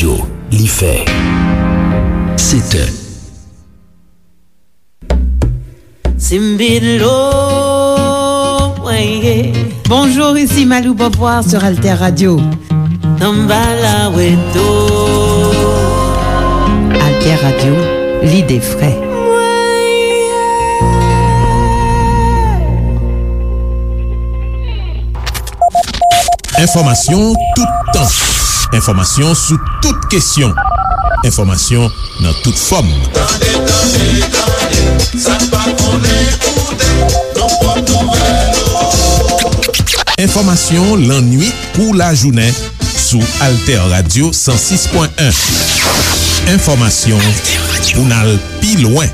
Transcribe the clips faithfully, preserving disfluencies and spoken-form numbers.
Li fè sèt è. Simbidlo, mwen ye. Bonjour, ici Malou Beauvoir sur Alter Radio. Samba la weto. Alter Radio, lide fre. Enfòmasyon toutan. Enfòmasyon sou tout kesyon. Enfòmasyon nan tout fòm. Tande, tande, tande, sa n pa konnen koute, nan pwòp nouvèl yo. Enfòmasyon lannuit kou lajounen sou Alter Radio san sis pwen en. Enfòmasyon pou n al pi lwen.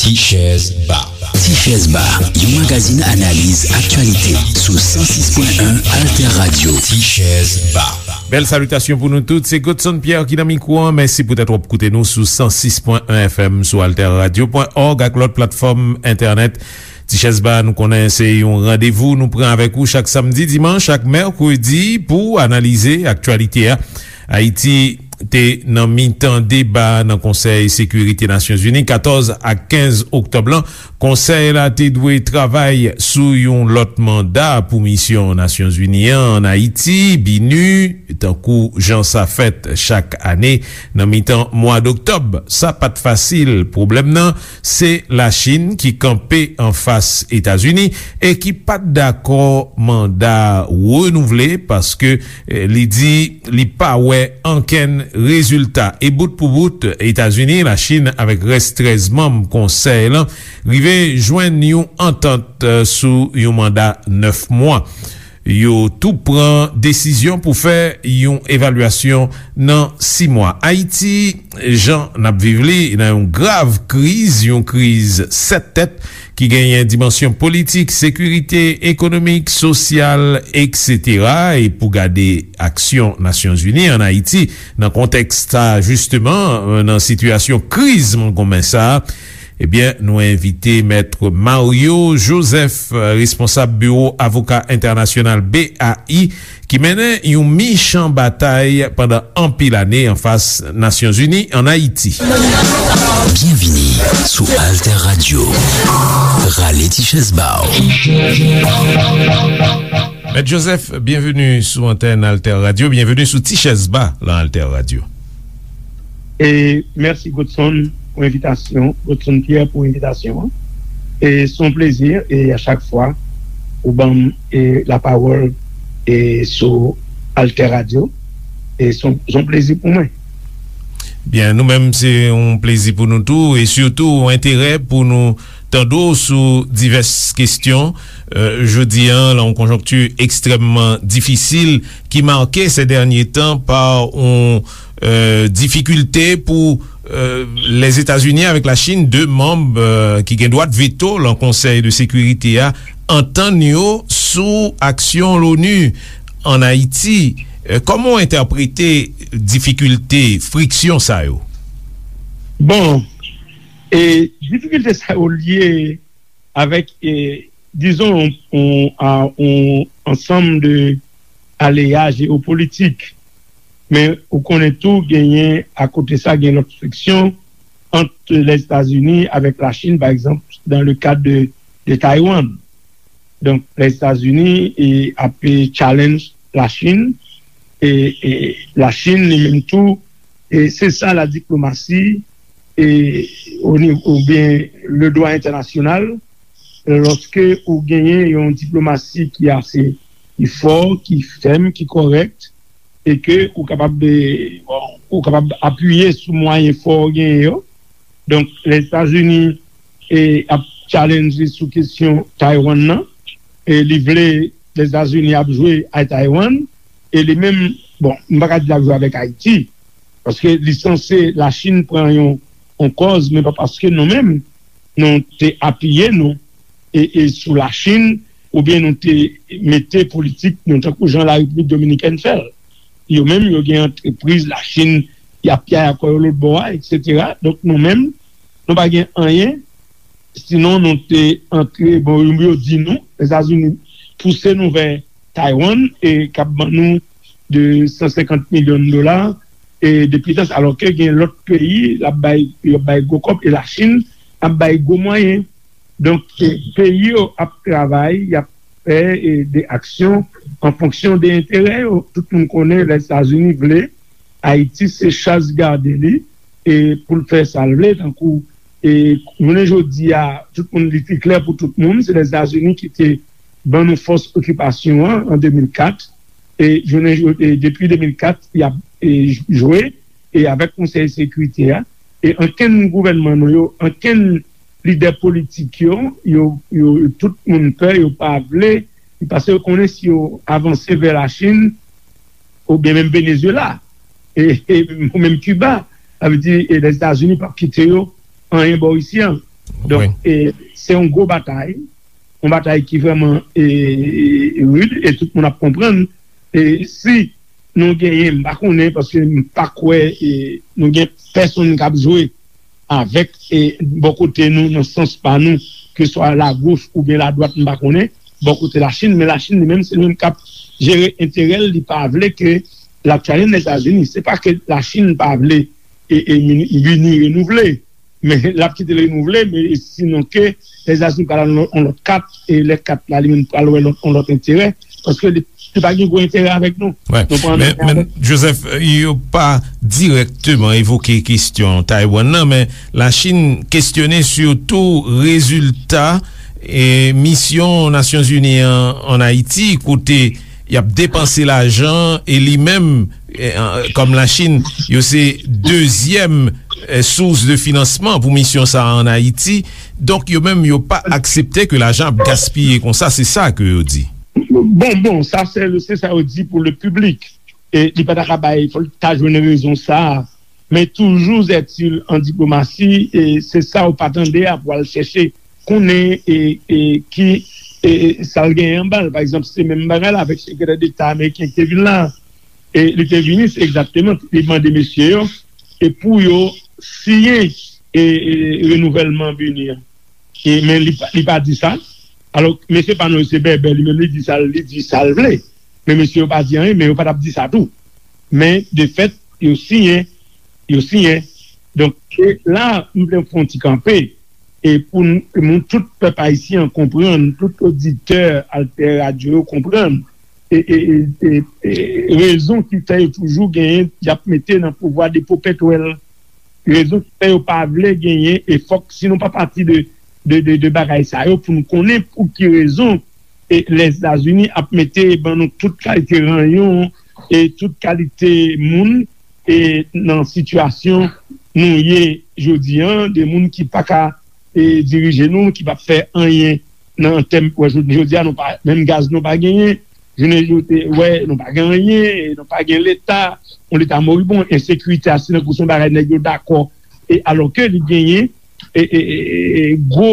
Ti Chèz Ba. Ti Chèz Ba, yon magazin analiz aktyalite sou san sis pwen en Alter Radio. Ti Chèz Ba. Bèl salitasyon pou nou tout. Se Godson Pierre ki nan mikwo an. Mèsi poutèt w ap koute nou sou san sis pwen en F M, sou alter radio pwen òg ak lòt platfòm entènèt. Ti Chèz Ba, nou konnen se yon randevou nou pran avèk ou chak samdi, dimanch ak mèkredi pou analize aktyalite a. Ayiti te nan mitan deba nan Konsèy Sekirite Nasyonzini katòz ak kenz oktòb lan. Konsèy la te dwe travay sou yon lòt manda pou misyon Nasyonzini an ann Ayiti, BINUH, tankou jan sa fèt chak ane nan mitan mwa doktòb. Sa pa t fasil. Pwoblèm nan, se Lachin ki kanpe anfas Etazini e ki pa t dakò manda renouvle paske, eh, li di li pa wè ankenn rezilta. E bout pou bout, Etazini, Lachin avèk rès trèz manm konsèy lan rive jwenn yon antant, eh, sou yon manda nèf mwa. Yo tou pran desizyon pou fè yon evalyasyon nan sis mwa. Ayiti, jan n ap viv li, nan yon grav kriz, yon kriz sèt tèt ki genyen dimansyon politik, sekirite, ekonomik, sosyal, etsetera. E pou gade aksyon Nasyonzini ann Ayiti nan kontèks sa, jisteman, nan sitiyasyon kriz konsa, ebyen, nou envite Mèt Mario Joseph, responsab biwo avoka entènasyonal B A I, ki mennen yon michan batay pandan anpil ane anfas Nasyonzini ann Ayiti. Byenvini sou Alter Radio. Rale ti chèz ba w. Mèt Joseph, byenveni sou antèn Alter Radio, byenveni sou Ti Chèz Ba lan Alter Radio. E mèsi Godson pou envitasyon, Godson Pierre pou envitasyon an. E se yon plezi, e a chak fwa ou ban m, e, lapawòl, e, sou Alter Radio, e se yon, se yon plezi pou mwen. Byen, nou menm, se yon plezi pou nou tou, e sitou yon enterè pou nou tande w sou divès kesyon, eh, jodi a, nan yon konjonkti ekstrèmman difisil ki make sè dènye tan pa yon, eh, difikilte pou, eh, Lèzetazini avèk Lachin, de manm, eh, ki gen dwa veto lan Konsèy de Sekirite a, antann yo sou aksyon Loni ann Ayiti. Eh, kòman w entèprete difikilte, friksyon sa yo? Bon, e difikilte sa yo lye avèk, e, dizon, yon, yon, a, yon ansanm de aleya jewopolitik. Men ou konnen tou, genyen, akote sa, gen lòt friksyon ant Lèzetazini avèk Lachin, pa egzanp, dans le cadre de, de Taiwan. Donk, Lèzetazini, e, ap, e, challenge Lachin, e, e Lachin, li menm tou, e se sa la diplomasi, e, o nivo, oubyen le dwa entènasyonal, lòske ou genyen yon diplomasi ki ase, ki fò, ki fèm, ki kòrèk, e ke ou kapab, e, bon, ou kapab apiye sou mwayen fò ou genyen yo. Donk, Lèzetazini, e, ap challenge sou kesyon Taiwan nan, e li vle Lèzetazini ap jwe a Taiwan, e li menm, bon, m pa ka di l ap jwe avèk Ayiti, paske li sanse Lachin pran yon, yon kòz, men pa paske nou menm, nou te apiye nou, e, e sou Lachin, oubyen nou te mete politik nou, tankou jan Larepiblik Dominikèn fè l. Yo menm, yo gen antrepriz Lachin, y ap pyay akò yo lòt bò a, etsetera. Donk, nou menm, nou pa gen anyen Sinon, nou te antre, bon, yo di nou, Lèzetazini pouse nou vè Taiwan, e k ap ban nou de san senkant milyon dola, e depi tan sa, alò ke gen lòt peyi, l ap bay, yo bay gwo kòb, e Lachin ap bay gwo mwayen. Donk, e, peyi yo ap travay, y ap fè, e, de aksyon an fonksyon de enterè yo. Tout moun konnen Lèzetazini vle Ayiti se chaz gade li, e pou l fè sa l vle, tankou, e jounen jodi a, tout moun, li te klè pou tout moun, se Lèzetazini ki te ban nou fòs okipasyon an, an de mil kat, e jounen jo-, e depi de mil kat, y ap, e, jwe, e avèk Konsèy Sekirite a, e ankenn gouvènman nou yo, ankenn lidè politik yo, yo, yo, tout moun pè, yo pa vle, paske yo konnen si yo avanse vè Lachin, oubyen menm Venezuela, e, e, ou menm Kiba, sa vle di, e Lèzetazini p ap kite yo anyen bò isi an. Donk, e, se yon gwo batay, yon batay ki vrèman, e, e, rid, e tout moun ap konprann. E si nou genyen, m pa konnen, paske m pa kwè, e, nou gen pèsonn k ap jwe avèk, e, bò kote nou, nan sans pa nou, ke swa lagoch oubyen ladwat, m pa konnen, bò kote Lachin, men Lachin li menm, se li menm k ap jere enterè l, li pa vle ke l ap chalenge Lèzetazini. Se pa ke Lachin pa vle, e, e, Mini-, Mini renouvle, men l ap kite l renouvle, men sinon ke Lèzetazini pral al yon lòt kat, e lè kat la, li menm pral wè lòt, yon lòt enterè, paske li, li pa gen gwo enterè avèk nou. Wi. Nou pran men, men Joseph, yo pa dirèkteman evoke kesyon Taiwan nan, men Lachin kesyone sitou rezilta, e, misyon Nasyonzini an ann Ayiti, kote y ap depanse lajan, e li menm, e, an, kòm Lachin, yo se dezyèm, e, sous de finansman pou misyon sa a ann Ayiti. Donk, yo menm, yo pa aksepte ke lajan ap gaspiye konsa, se sa ke yo di. Bon, bon, sa se, se sa yo di pou le piblik. E li pa ta ka bay, fò l ta jwenn rezon sa a. Men toujou, zètil an diplomasi, e se sa ou pa tande a pou al chèche konnen, e, e ki, e, e sa l genyen anba l. Pa egzanp, se menm bagay la avèk sekretè deta ameriken ki te vin la. E li te vini, se egzakteman, li mande mesye yo, e pou yo siyen, e, e renouvèlman Mini an. E, men li pa, li pa di sa. Alò, mesye pa nou yo se bèbè, li menm li di sa, li di sa l vle. Men mesye yo pa di anyen, men yo pa t ap di sa tou. Men, de fèt, yo siyen, yo siyen. Donk, e la, m vle fè yon ti kanpe. E pou n, pou nou tout pèp ayisyen an konprann, tout oditè Alter Radio yo konprann, e, e, e, e, e rezon ki fè yo toujou genyen, y ap mete nan pouvwa depo pètwèl. Rezon ki fè yo pa vle genyen, e fòk, si nou pa pati de, de, de, de bagay sa yo, pou nou konnen pou ki rezon, e Lèzetazini ap mete ban nou tout kalite ranyon, e tout kalite moun, e nan sitiyasyon nou ye jodi an, de moun ki pa ka, e dirije nou, ki p ap fè anyen nan tèm, wè, jodi, jodi a, nou pa, menm gaz nou pa genyen, jounen jodi, wè, nou pa gen anyen, e nou pa gen leta, yon leta moribon, ensekirite a, se tankou se yon bagay nèg yo dakò, e alò ke li genyen, e, e, e, e, gwo,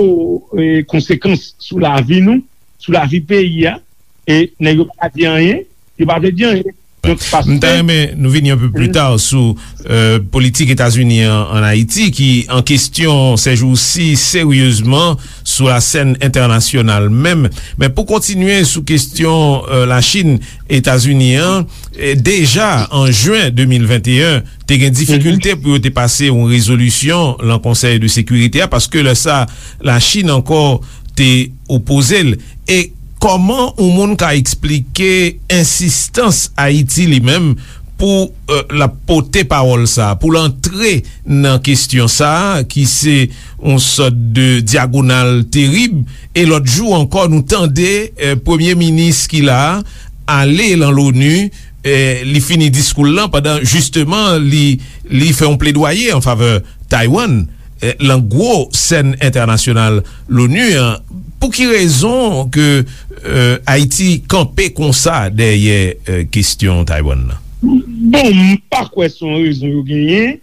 e, konsekans sou lavi nou, sou lavi peyi a, e nèg yo pa di anyen, yo pa vle di anyen. Donk, paske m ta renmen nou vini yon pe pli ta sou, e, politik Etazini an, ann Ayiti, ki an kesyon sèjousi seryezman sou la sèn entènasyonal menm. Men pou kontinye sou kesyon, e, Lachin, Etazini an, e, deja an jen de mil venteyen, te gen difikilte pou yo te pase yon rezolisyon lan Konsèy de Sekirite a, paske lè sa, Lachin ankò te opoze l. E kòman yon moun ka eksplike ensistans Ayiti li menm pou, e, l ap pote pawòl sa a, pou l antre nan kesyon sa a, ki se yon sòt de dyagonal terib? E lòt jou ankò, nou tande, e, premye minis ki la a ale lan Loni, e, li fini diskou l lan pandan, jisteman, li, li fè yon pledwaye an favè Taiwan, e, lan gwo sèn entènasyonal Loni an. Pou ki rezon ke, e, Ayiti kanpe konsa dèyè, e, kesyon Taiwan nan? Bon, m pa kwè se yon rezon yo genyen.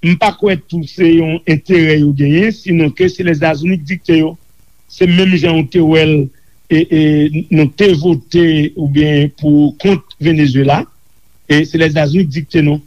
M pa kwè tou se yon enterè yo genyen, sinon ke se Lèzetazini ki dikte yo. Se menm jan ou te wè l, e, e, nou te vote oubyen pou kont Venezuela, e se Lèzetazini ki dikte nou.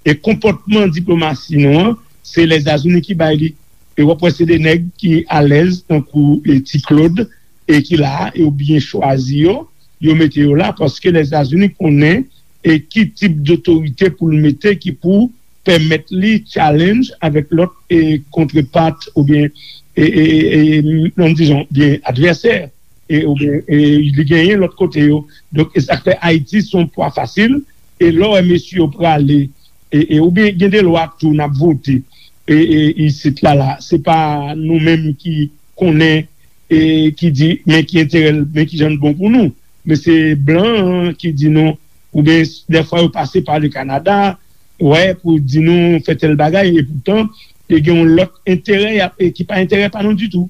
E konpòtman diplomasi nou an, se Lèzetazini ki bay li. E w ap wè se de nèg ki alèz, tankou e, Ti Claude, e ki la a, e yo byen chwazi yo, yo mete yo la, paske Lèzetazini konnen e ki tip dotorite pou l mete ki pou pèmèt li challenge avèk lòt e kontrepart oubyen e, e, e, e, non, dizon, byen advèsè e, oubyen e, li genyen lòt kote yo. Donk, e sa k fè Ayiti se yon pwa fasil. E lè w wè mesye yo prale, e, e, oubyen gen de lwa tou n ap vote e, e, isit la la. Se pa nou menm ki konnen e ki di men ki enterè l, men ki jan l bon pou nou. Men se blan an ki di nou, oubyen dèfwa yo pase pa le Kanada, wè, pou di nou fè tèl bagay, e poutan, e gen yon lòt enterè y ap- e ki pa enterè pa nou ditou.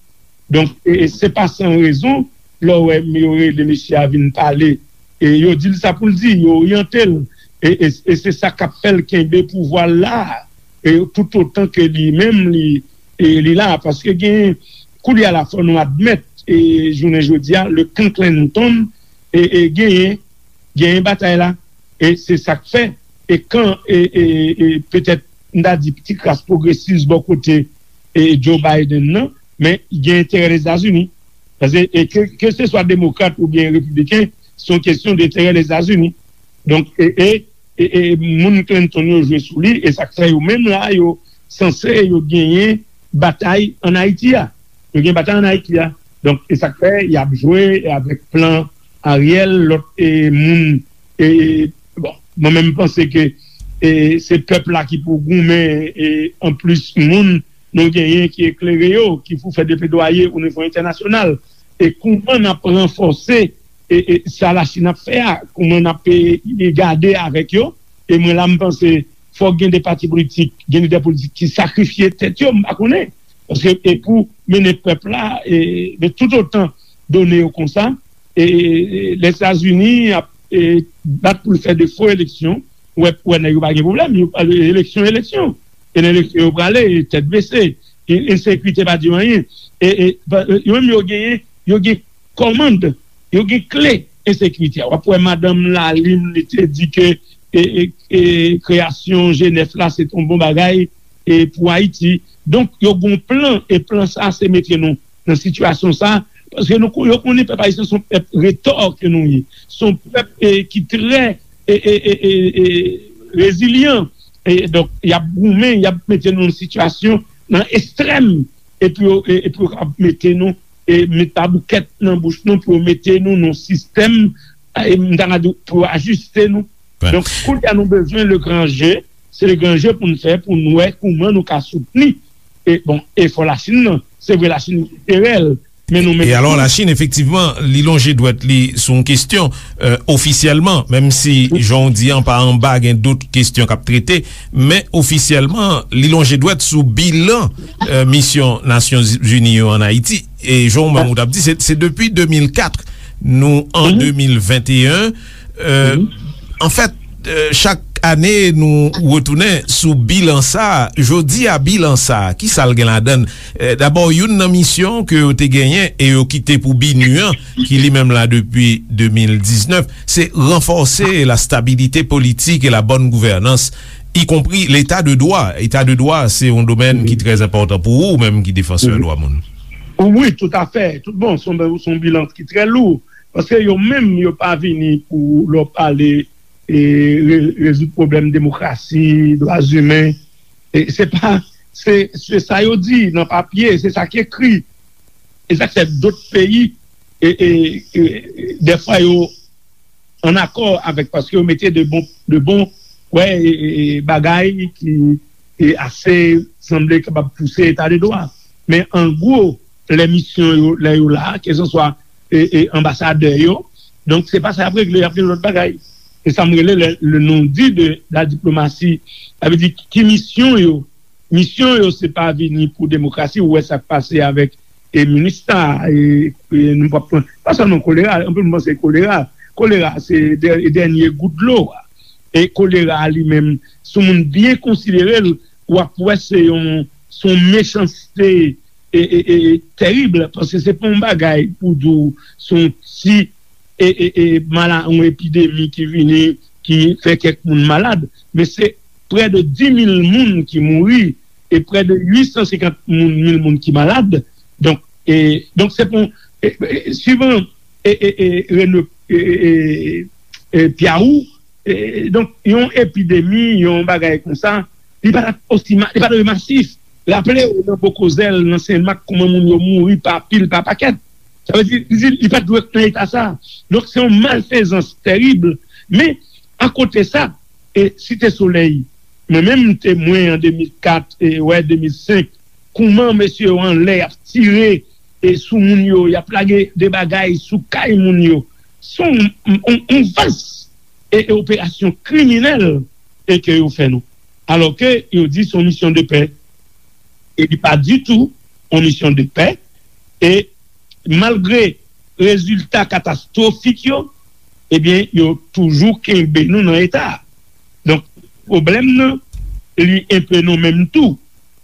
Donk, e, e se pa san rezon, lè w wè yo rele mesye a vin pale, e yo di l sa pou l di, yo oryante l, e, e, e se sa k ap fè l kenbe pouvwa l la, e toutotan ke li menm li, e li la, paske gen, koulye a la fò nou admèt, e jounen jodi a, le kan Clinton, e, e genyen, genyen batay la, e se sa k fè, e kan, e, e, e petèt, m ta di, ti kras pwogresis bò kote e Joe Biden nan, men gen enterè Lèzetazini. Paske, e ke, ke se swa demokrat oubyen repibliken, se yon kesyon de enterè Lèzetazini. Donk, e, e, e, e moun Clinton yo jwe sou li, e sa k fè yo menm la, yo sanse yo genyen batay ann Ayiti a. Yo gen batay ann Ayiti a. Donk, e sa k fè y ap jwe avèk plan Ariel, lòt e, moun. E, bon, mwen menm, m panse ke e, se pèp la ki pou goumen, e, anplis moun nou genyen ki eklere yo, ki pou fè de pledwaye o nivo entènasyonal. E kouman n ap ranfòse e, e, sa Lachin ap fè a, kouman n ap e, e gade avèk yo. E mwen la, m panse fòk gen de pati politik, gen lidè politik ki sakrifye tèt yo, m pa konnen. Paske e pou mennen pèp la, e, men toutotan done yo konsa, e, e, Lèzetazini ap e, bat pou l fè de fo eleksyon, ou wè, ou wè nèg yo pa gen pwoblèm, yo, eleksyon, eleksyon. E nan eleksyon yo prale, tèt bese, e, ensekirite pa di yo anyen. E, e, pa- yo menm yo genyen, yo gen kòmand, yo gen kle ensekirite a. W ap wè madanm Lalime, li te di ke e, e, e, kreyasyon G nèf la, se t on bon bagay e, pou Ayiti. Donk, yo gen yon plan, e plan sa, se mete nou nan sitiyasyon sa, paske nou, yo konnen pèp ayisyen se yon pèp retò ke nou ye. Se yon pèp e, ki trè e, e, e, e, e, rezilyan. E, donk, y ap goumen, y ap mete nou nan sitiyasyon, nan ekstrèm, epi yo, e, epi yo ap mete nou, e, met paboukèt nan bouch nou pou yo mete nou nan sistèm, e, m ta ka di, pou yo ajiste nou. Donk, kounye a nou bezwen le gran je, se le gran je pou n fè, pou n wè kouman nou ka soutni, e, bon, efò Lachin nan. Se vre, Lachin gen enterè l, men nou menm tou. E alò, Lachin, efektivman, li lonje dwèt li sou yon kesyon, e, ofisyèlman, menm si, jan w di an, pa anba, gen dòt kesyon k ap trete, men ofisyèlman, li lonje dwèt sou bilan, e, misyon Nasyonzini yo ann Ayiti. E jan w menm ou t ap di, se, se depi de mil kat, nou an de mil venteyen. E, anfèt, e, chak ane, nou retounen sou bilan sa a. Jodi a, bilan sa a, ki sa l gen ladan l? E, dabò, youn nan misyon ke yo te genyen e yo kite pou BINUH an, ki li menm la depi de mil diznèf, se ranfòse la stabilité politique et la bonne gouvernance, y compris l'état de droit. Eta de dwa, se yon domèn ki trè enpòtan pou ou, ou menm ki defansè dwa moun. Wi, toutafè. Tout bon, se yon, se yon bilan ki trè lou. Paske yo menm, yo pa vini pou lè w pale e, re- rezoud pwoblèm demokrasi, dwa imen. E se pa, se, se sa yo di nan papye, se sa k ekri. E sa k fè dòt peyi, e, e, e, dèfwa yo ann akò avèk, paske yo mete de bon, de bon, wè, e, e, e, bagay ki e ase sanble kapab pouse eta de dwa. Men an gwo, lè misyon yo, lè yo la, kèlkanswa e, e, anbasadè yo, donk se pa sa y ap regle, y ap gen lòt bagay. Se sa m rele le, le non-dit de la diplomatie. Sa vle di, ki misyon yo? Misyon yo, se pa vini pou demokrasi, ou wè sa k pase avèk e, MINUSTAH, e, e, nou p ap pran, pa sèlman kolera, anpil moun panse kolera. Kolera, se dè- dènye gout dlo a. E kolera a li menm, si yon moun byen konsidere l, w ap wè se yon, se yon mechanste e, e, e, tèrib, paske se pa yon bagay pou di w se yon ti e, e, e, mala- yon epidemi ki vini, ki fè kèk moun malad, men se prè de dis mil moun ki mouri e prè de uit san senkant moun, mil moun ki malad. Donk, e, donk se pou, e, e, suivan, e, e, e, Rene, e, e, e, e, Piawou, e, donk, yon epidemi, yon bagay konsa, li pa t osi ma-, li pa t masif. Raple w, nan Bokozèl, nan Senmak, kòman moun yo mouri pa pil, pa pakèt. Sa vle di, li, li pa t dwe nan eta sa. Donk, se yon malfezans tèrib. Men, akote sa, e Site Solèy, mwen menm, m temwen an de mil kat, e, wè, de mil senk, kòman mesye yo anlè, y ap tire, e, sou moun yo, y ap lage de bagay sou kay moun yo. Se yon, yon, yon, yon vas e, e operasyon kriminèl e ke yo fè nou. Alò ke yo di se yon misyon de pè. E li pa ditou yon misyon de pè. E malgre rezilta katastwofik yo, ebyen, yo toujou kenbe nou nan eta a. Donk, pwoblèm nan, li enpe nou menm tou.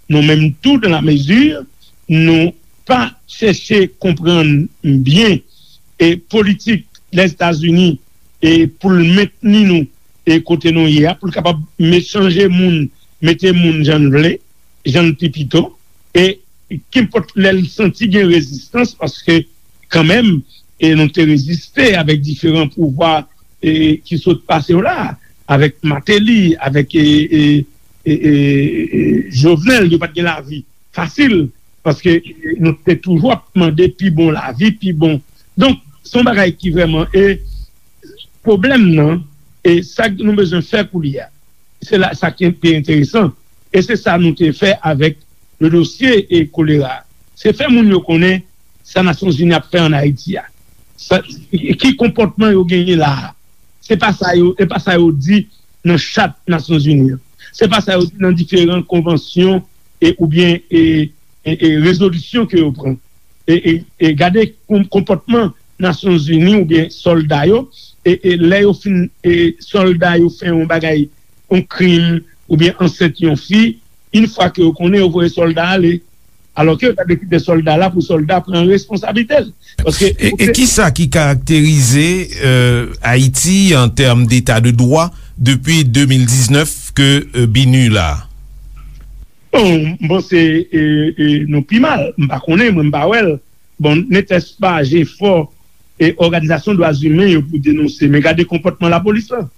Nou menm tou, dans la mesure, nou pa chèche konprann byen e politik Lèzetazini e pou l mentni nou e kote nou ye a, pou l kapab me-, chanje moun, mete moun jan l vle, jan l pi pito, e kenpòt lè l santi gen rezistans, paske kanmenm, e nou te reziste avèk diferan pouvwa, e ki sot pase yo la, avèk Martelly, avèk, e, e, e, e, e, Jovenel, yo pa t gen lavi fasil, paske, e, nou te toujou ap mande pi bon lavi, pi bon. Donk, se yon bagay ki vrèman, e pwoblèm nan, e sa nou bezwen fè koulye a, se la, sa ki pi enteresan, e se sa nou te fè avèk le dosye e kolera. Se fè moun yo konnen sa Nasyonzini ap fè ann Ayiti a. Sa, ki konpòtman yo genyen la a. Se pa sa yo, e pa sa yo di nan chat Nasyonzini an. Se pa sa yo di nan diferan konvansyon e, oubyen, e, e, e rezolisyon ke yo pran. E, e, e gade kon-, konpòtman Nasyonzini oubyen sòlda yo, e, e lè yo fin, e sòlda yo fè yon bagay, yon krim, oubyen ansent yon fi, yon fwa ke yo konnen, yo voye sòlda ale. Alò ke yo ta dwe kite sòlda la pou sòlda pran responsablite l. Paske e, e ki sa ki karakterize, euh, Ayiti an tèm deta de dwa depi de mil diznèf ke, euh, BINUH la? Bon, m panse, e, e, nou pi mal. M pa konnen, mwen m pa wè l. Bon, netès pa jefò e òganizasyon dwa imen yo pou denonse. Men gade konpòtman lapolis lan.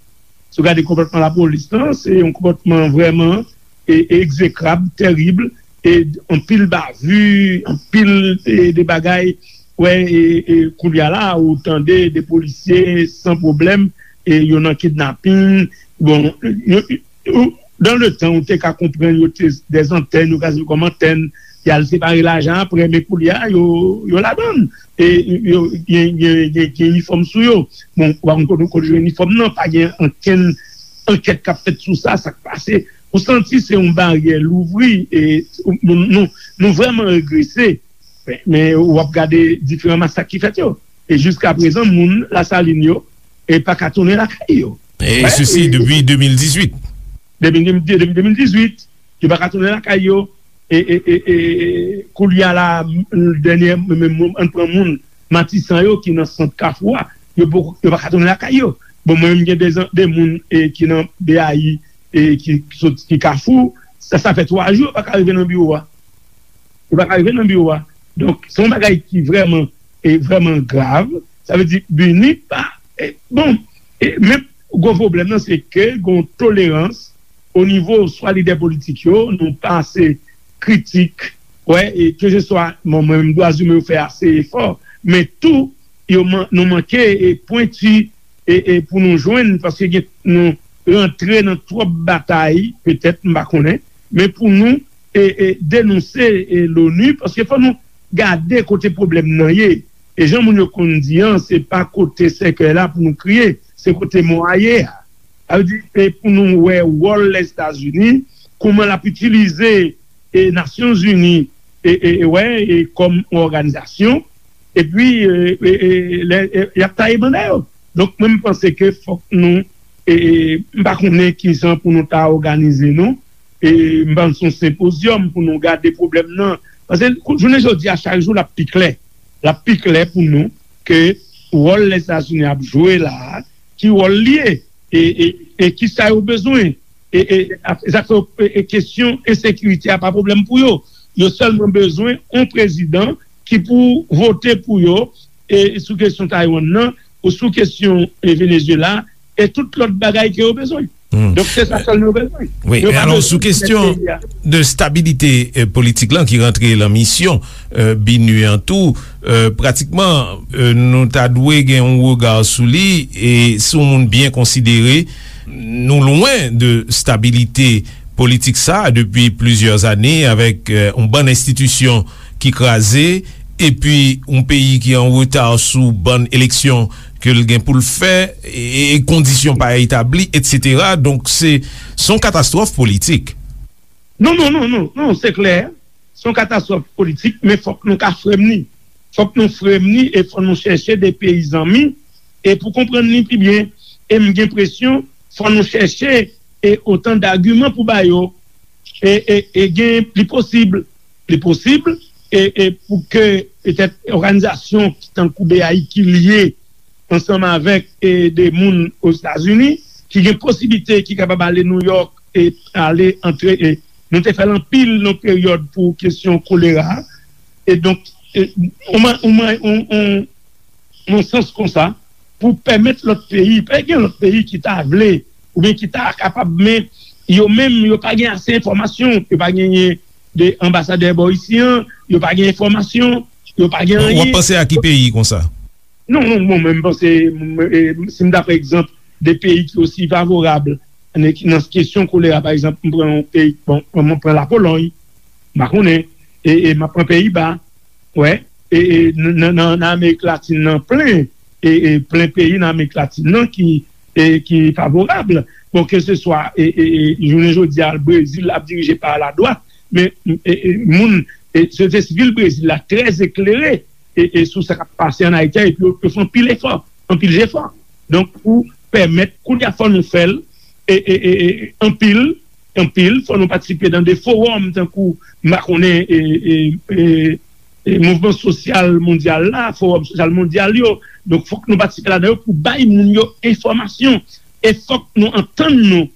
Si w gade konpòtman lapolis lan, se yon konpòtman vrèman, e, e egzekrab, tèrib, e anpil bavi, anpil, e, de bagay. Wè, e, e koulye a la, ou tande de polisye san pwoblèm, e yo nan kidnapin. Bon, yo, yo, dans le temps, ou te ka konprann yo te dèzantèn, yo ka sèvi kòm antèn, y al separe lajan apre, men koulye a, yo, yo ladann. E yo gen, gen, gen, gen inifòm sou yo. Bon, ou pa konn kote, kote yo jwenn inifòm nan, pa gen ankenn ankèt k ap fèt sou sa, sa k pase. Ou santi se yon baryè louvri, e nou, nou, nou vrèman regrese. Men, men w ap gade diferan masak ki fèt yo. E jiska prezan, moun Lasalin yo, e pa ka tounen lakay yo. E sesi depi de mil dizuit. Depi, depi, depi de mil dizuit, yo pa ka tounen lakay yo. E, e, e, e koulye a la, dènye, men, men, ann pran moun Matisan yo ki nan sant Kafou a, yo poko, yo pa ka tounen lakay yo. Bon, mwen menm gen de, de moun, e, ki nan B A I, e, ki, ki sot, ki Kafou, sa, sa fè twa jou yo pa ka rive nan biwo a. Yo pa ka rive nan biwo a. Donk, se yon bagay ki vrèman, e vrèman grav. Sa vle di, BINUH pa, e, bon, e, men gwo pwoblèm nan, se ke gon tolerans o nivo swa lidè politik yo, nou pa ase kritik, wè, e keseswa, bon, mwen menm dwa imen yo fè ase efò, men tou, yo man-, nou manke, e, pwenti, e, e pou nou jwenn, paske gen, nou rantre nan twòp batay, petèt, m pa konnen, men pou nou, e, e, denonse, e, l'ONU, paske fò nou gade kote pwoblèm nan ye. E jan moun yo konn di an, se pa kote sèkèy la pou nou kriye, se kote mò a ye a. Sa vle di, e pou nou wè wòl Lèzetazini, kòman l ap itilize, e, Nasyonzini, e, e, e, wè, e, kòm yon òganizasyon, epi, e, e, e, lè, e, y ap taye banda yo. Donk, mwen, m panse ke fòk nou, e, e, m pa konnen kijan pou nou ta òganize nou, e, m panse yon senpozyòm pou nou gade pwoblèm nan. Paske, kou-, jounen jodi a, chak jou, l ap pi klè. L ap pi klè pou nou ke wòl Lèzetazini ap jwe la a, ki wòl li ye, e, e, e kisa yo bezwen, E, e, e, sa k fè, e, e, kesyon ensekirite a pa pwoblèm pou yo. Yo sèlman bezwen yon prezidan ki pou vote pou yo, e, sou kesyon Taiwan nan, ou sou kesyon, e, Venezuela, e tout lòt bagay ke yo bezwen. Donk, se sa sèlman yo bezwen. Wi, men alò, sou kesyon de stabilite, e, politik lan ki rantre lan misyon, e, BINUH an tou, e, pratikman, e, nou ta dwe gen yon rega sou li, e si yon moun byen konsidere, nou lwen de stabilite politik sa a depi plizyè ane avèk, e, yon bann enstitisyon ki kraze, epi yon peyi ki an reta sou bann eleksyon ke l gen pou l fè, e, e kondisyon pa etabli, etsetera. Donk, se, se yon katastwòf politik. Non, non, non, non, non, se klè. Se yon katastwòf politik, men fòk nou ka frè m ni. Fòk nou frè m ni e fò nou chèche de peyi zanmi e pou konprann li pi byen. E m gen enpresyon, fò nou chèche e otan dagiman pou ba yo. E, e, e gen, li posib, li posib, e, e pou ke petèt òganizasyon ki tankou BAI ki lye ansanm avèk, e, de moun Ozetazini ki gen posiblite, ki kapab ale Nouyòk e ale antre. E nou te fè l anpil nan peryòd pou kesyon kolera. E donk, e, on, on, on, on, nan sans konsa, pou pèmèt lòt peyi, pa gen lòt peyi ki ta vle oubyen ki ta kapab, men yo menm, yo pa gen ase enfòmasyon, yo pa genyen de anbasadè bò isi an, yo pa gen enfòmasyon, yo pa gen anyen. W ap panse a ki peyi konsa? Non, non, bon, men m panse, m, e, si m ta pran egzanp de peyi ki osi favorab nan, nan kesyon kolera, pa egzanp, m pran yon peyi, bon, m pran Lapolòy, m pa konnen, e, e m ap pran Peyiba, wè, e, e, nan, nan, nan Amerik Latin nan plen, e, e plen peyi nan Amerik Latin nan ki, e, ki favorab. Bon, ke se swa, e, e, e, jounen jodi a, Brezil ap dirije pa ladwat, men, e, e, moun, e, sosyete sivil Brezil la trè eklere, e, e, sou sa k ap pase ann Ayiti a, epi yo, yo fè anpil efò, anpil jefò. Donk, pou pèmèt, kounye a fò nou fè l, e, e, e, e, anpil, anpil, fò nou patisipe nan de fowòm, tankou, m pa konnen, e, e, e, e, mouvman sosyal mondyal la, fowòm sosyal mondyal yo. Donk, fòk nou patisipe ladan yo pou bay moun yo enfòmasyon. E fòk nou antann nou.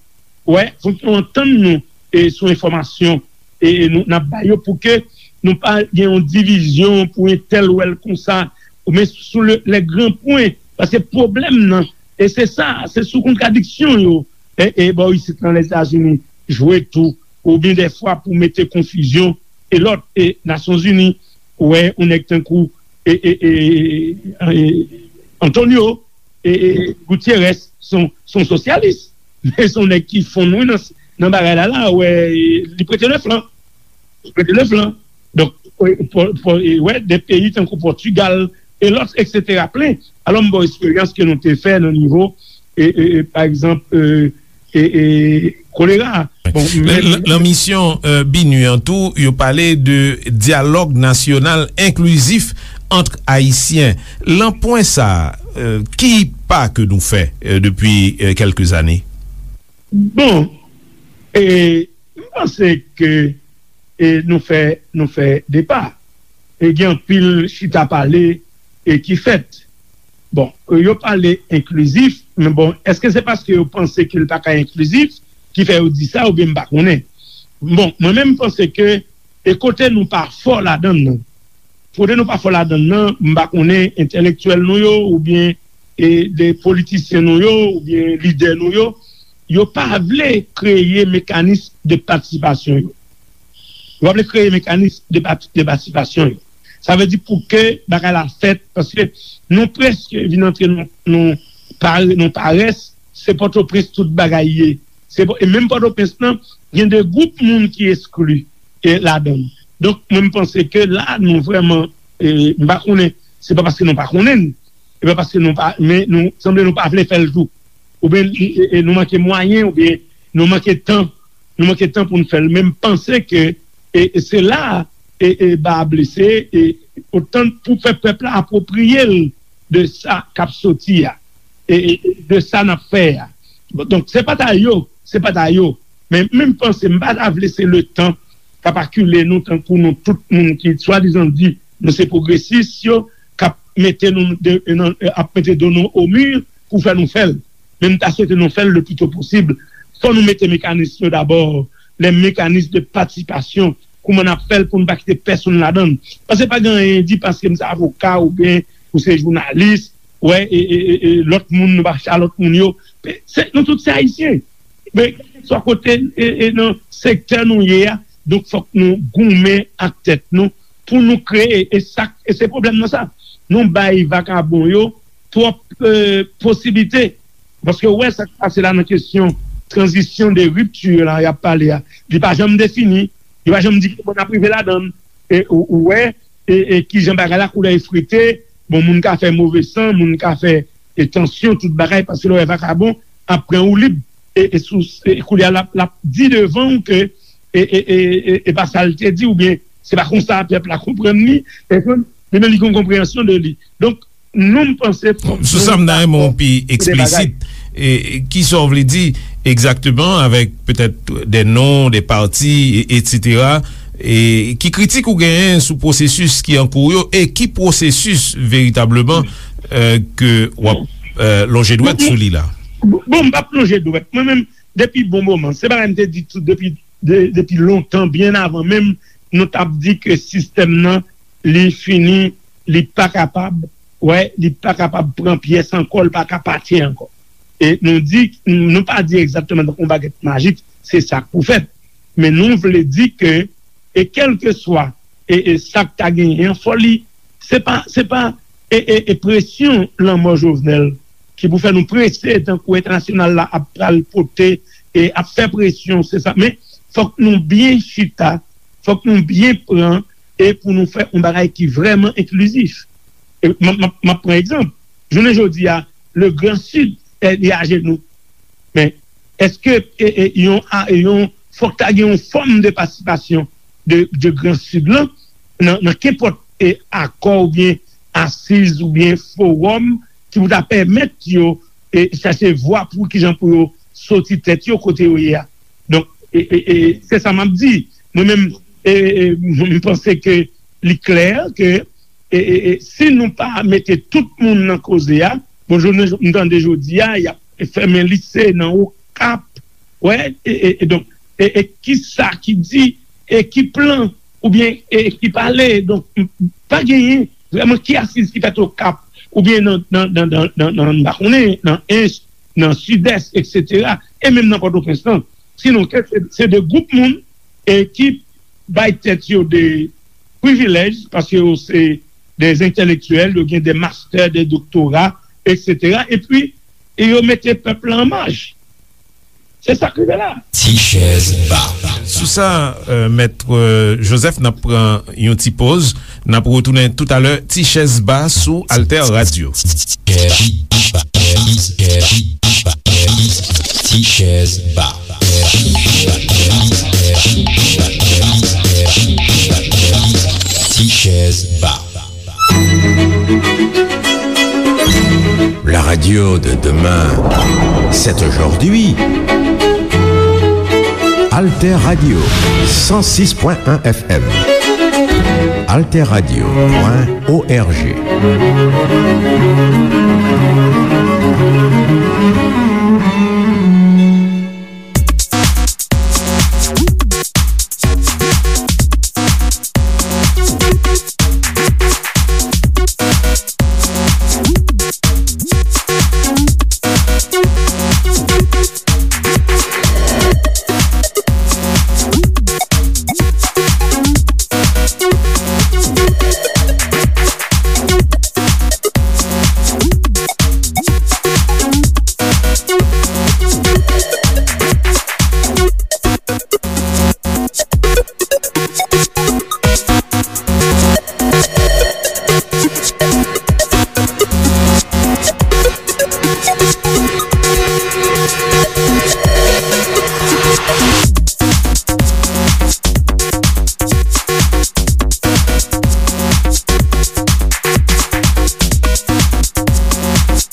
Wè, fòk nou antann nou, e, sou enfòmasyon, e, e nou, n ap bay yo pou ke nou pa gen yon divizyon pou entèl wè l konsa, ou men sou le, les grands points. Paske pwoblèm nan, e se sa, se sou kontradiksyon yo, e, e bò isit nan Lèzetazini jwe tou, oubyen dèfwa pou mete konfizyon, e lòt, e Nasyonzini, ou wè, yon nèg tankou, e, e, e, e, Antonio, e, e, Gutierrez, se yon, se yon sosyalis. Men se yon nèg ki fonn wi nan, nan bagay la, la, wè, li prete le flan. Li prete le flan. Donk, wè, de peyi tankou Pòtigal, e lòt, etsetera, plen. Alò, m ba w eksperyans ke nou te fè nan nivo, e, e, e, pa egzanp, e, e, e, kolera. Bon, men, lan misyon, e, BINUH an tou, yo pale de dyalòg nasyonal enklizif ant Ayisyen. Lan pwen sa, e, ki pa ke nou fè, e, depi, e, kèlke zane? Bon, e, m panse ke, e, nou fè, nou fè de pa. E gen anpil chita pale, e, ki fèt. Bon, e, yo pale enklizif, men bon, èske se paske yo panse ke l pa ka enklizif ki fè yo di sa, oubyen m pa konnen? Bon, mwen menm, m panse ke, e, kote nou pa fò ladan l nan, kote nou pa fò ladan l nan, m pa konnen entèlektyèl nou yo, oubyen, e, de politisyen nou yo, oubyen lidè nou yo, yo pa vle kreye mekanis de patisipasyon yo. Yo pa vle kreye mekanis de pati-, de patisipasyon yo. Sa vle di pou ke bagay la fèt, paske nou prèske vin antre nan, nan pa-, nan parès, se Pòtoprens tout bagay ye. Se, e menm Pòtoprens lan, gen de gwoup moun ki eskli, e, ladan l. Donk, mwen, m panse ke la, nou vrèman, e, m pa konnen, se pa paske nou pa konnen l, e pa paske nou pa, men nou, sanble nou pa vle fè l tou. Oubyen, e, e, nou manke mwayen, oubyen nou manke tan, nou manke tan pou n fè l. Men m panse ke, e, e se la, e, e, ba a blese, e otan pou fè pèp la apwopriye l de sa k ap soti a, e, e, e de sa n ap fè a. Bon, donk, se pa ta yo, se pa ta yo. Men, men m panse, m pa ta vle se letan k ap akile nou tankou nou tout moun ki swadizan di nou se pwogresis yo, k ap mete nou de, nan, ap mete do nou o mi pou fè nou fè l. Men m ta swete nou fè l le pli to posib. fò nou mete mekanis yo dabò, les mécanismes de participation, kouman n ap fè l pou n pa kite pèsonn ladan l. Paske pa gen anyen di paske m se avoka oubyen ou se jounalis, wè, e, e, e, e lòt moun, nou pa chita lòt moun yo. Se, nou tout se Ayisyen. Men, kèlkeswa kote, e, e, nan sektè nou ye a, donk fòk nou goumen ak tèt nou pou nou kreye, e sa, e se pwoblèm nan sa. Nou bay vakabon yo twòp, e, posiblite. Paske ou wè sa k pase la nan kesyon tranzisyon de ripti la y ap pale a. Li pa janm defini, li pa janm di ki bò n ap rive ladan l. E ou, ou wè, e, e kijan bagay la koulè efrite, bon, moun ka fè move san, moun ka fè, e, tansyon, tout bagay, paske lè w wè vakabon ap pran woulib, e, e sou, e koulye a l ap, l ap di devan w ke, e, e, e, e, e pa sa l te di, oubyen se pa konsa pèp la konprann li, e konn, li menm li gen yon konpreyansyon de li. Donk, nou, m panse fòk Sou sa, m ta renmen w pi eksplisit. E, e, kisa w vle di egzakteman avèk petèt de non, de pati, e, etsetera? E ki kritik ou genyen sou pwosesis ki an kou yo e ki pwosesis veritableman, e, ke w ap, e, lonje dwèt sou li la? Bon, bon, m p ap lonje dwèt. Mwen menm, depi bon moman, se bagay m te di tou depi, de, depi lontan, byen avan menm nou t ap di ke sistèm nan, li fini, li pa kapab, wè, li pa kapab pran pyès ankò, li pa ka pati ankò. E nou di, nou pa di egzakteman tankou yon bagèt majik, se sa k pou fèt. Men nou vle di ke, e kèlkeswa, e, e sa k ta genyen an, fò li, se pa, se pa, e, e, e presyon lanmò Jovenel ki pou fè nou prese tankou entènasyonal la ap pral pote, e ap fè presyon, se sa. Men fòk nou byen chita, fòk nou byen pran, e pou nou fè yon bagay ki vrèman enklizif. E m ap, m ap, m ap pran egzanp. Jounen jodi a, le Grand Sud, e, li ajenou. Men, èske, e, e, yon, a, yon, fòk ta gen yon fòm de patisipasyon de, de Gran Sid lan nan, nan kenpòt, e, akò oubyen asiz oubyen fowòm ki pou ta pèmèt yo, e, chache vwa pou kijan pou yo soti tèt yo kote yo ye a. Donk, e, e, e, se sa m ap di. Mwen menm, e, e, m panse ke li klè ke, e, e, e, si nou pa mete tout moun nan koze a, bon, jodi, m tande jodi a, y ap fèmen lise nan Okap, wè, e, e, e donk, e, e ki sa ki di, e ki plan, oubyen, e ki pale, donk, m, pa genyen vrèman ki asiz ki fèt Okap, oubyen nan, nan, nan, nan, nan, nan, m pa konnen, nan Ench, nan Sidès, etsetera, e menm nan Pòtoprens lan. Sinon, ke se, se de gwoup moun, e ki bay tèt yo de privilèj, paske yo se de entèlektyèl, yo gen de mastè, de doktora, etsetera, epi, e yo mete pèp la an maj. Se sa k rive la. Ti chèz ba. Sou sa, euh, Mèt, euh, Joseph, n ap pran yon ti poz. N ap retounen toutalè, Ti chèz ba sou Alter Radio. Ti chèz ba. Ti chèz ba. La radio de demain, c'est aujourd'hui. Alter Radio, cent six point un F M. Alter Radio point O R G.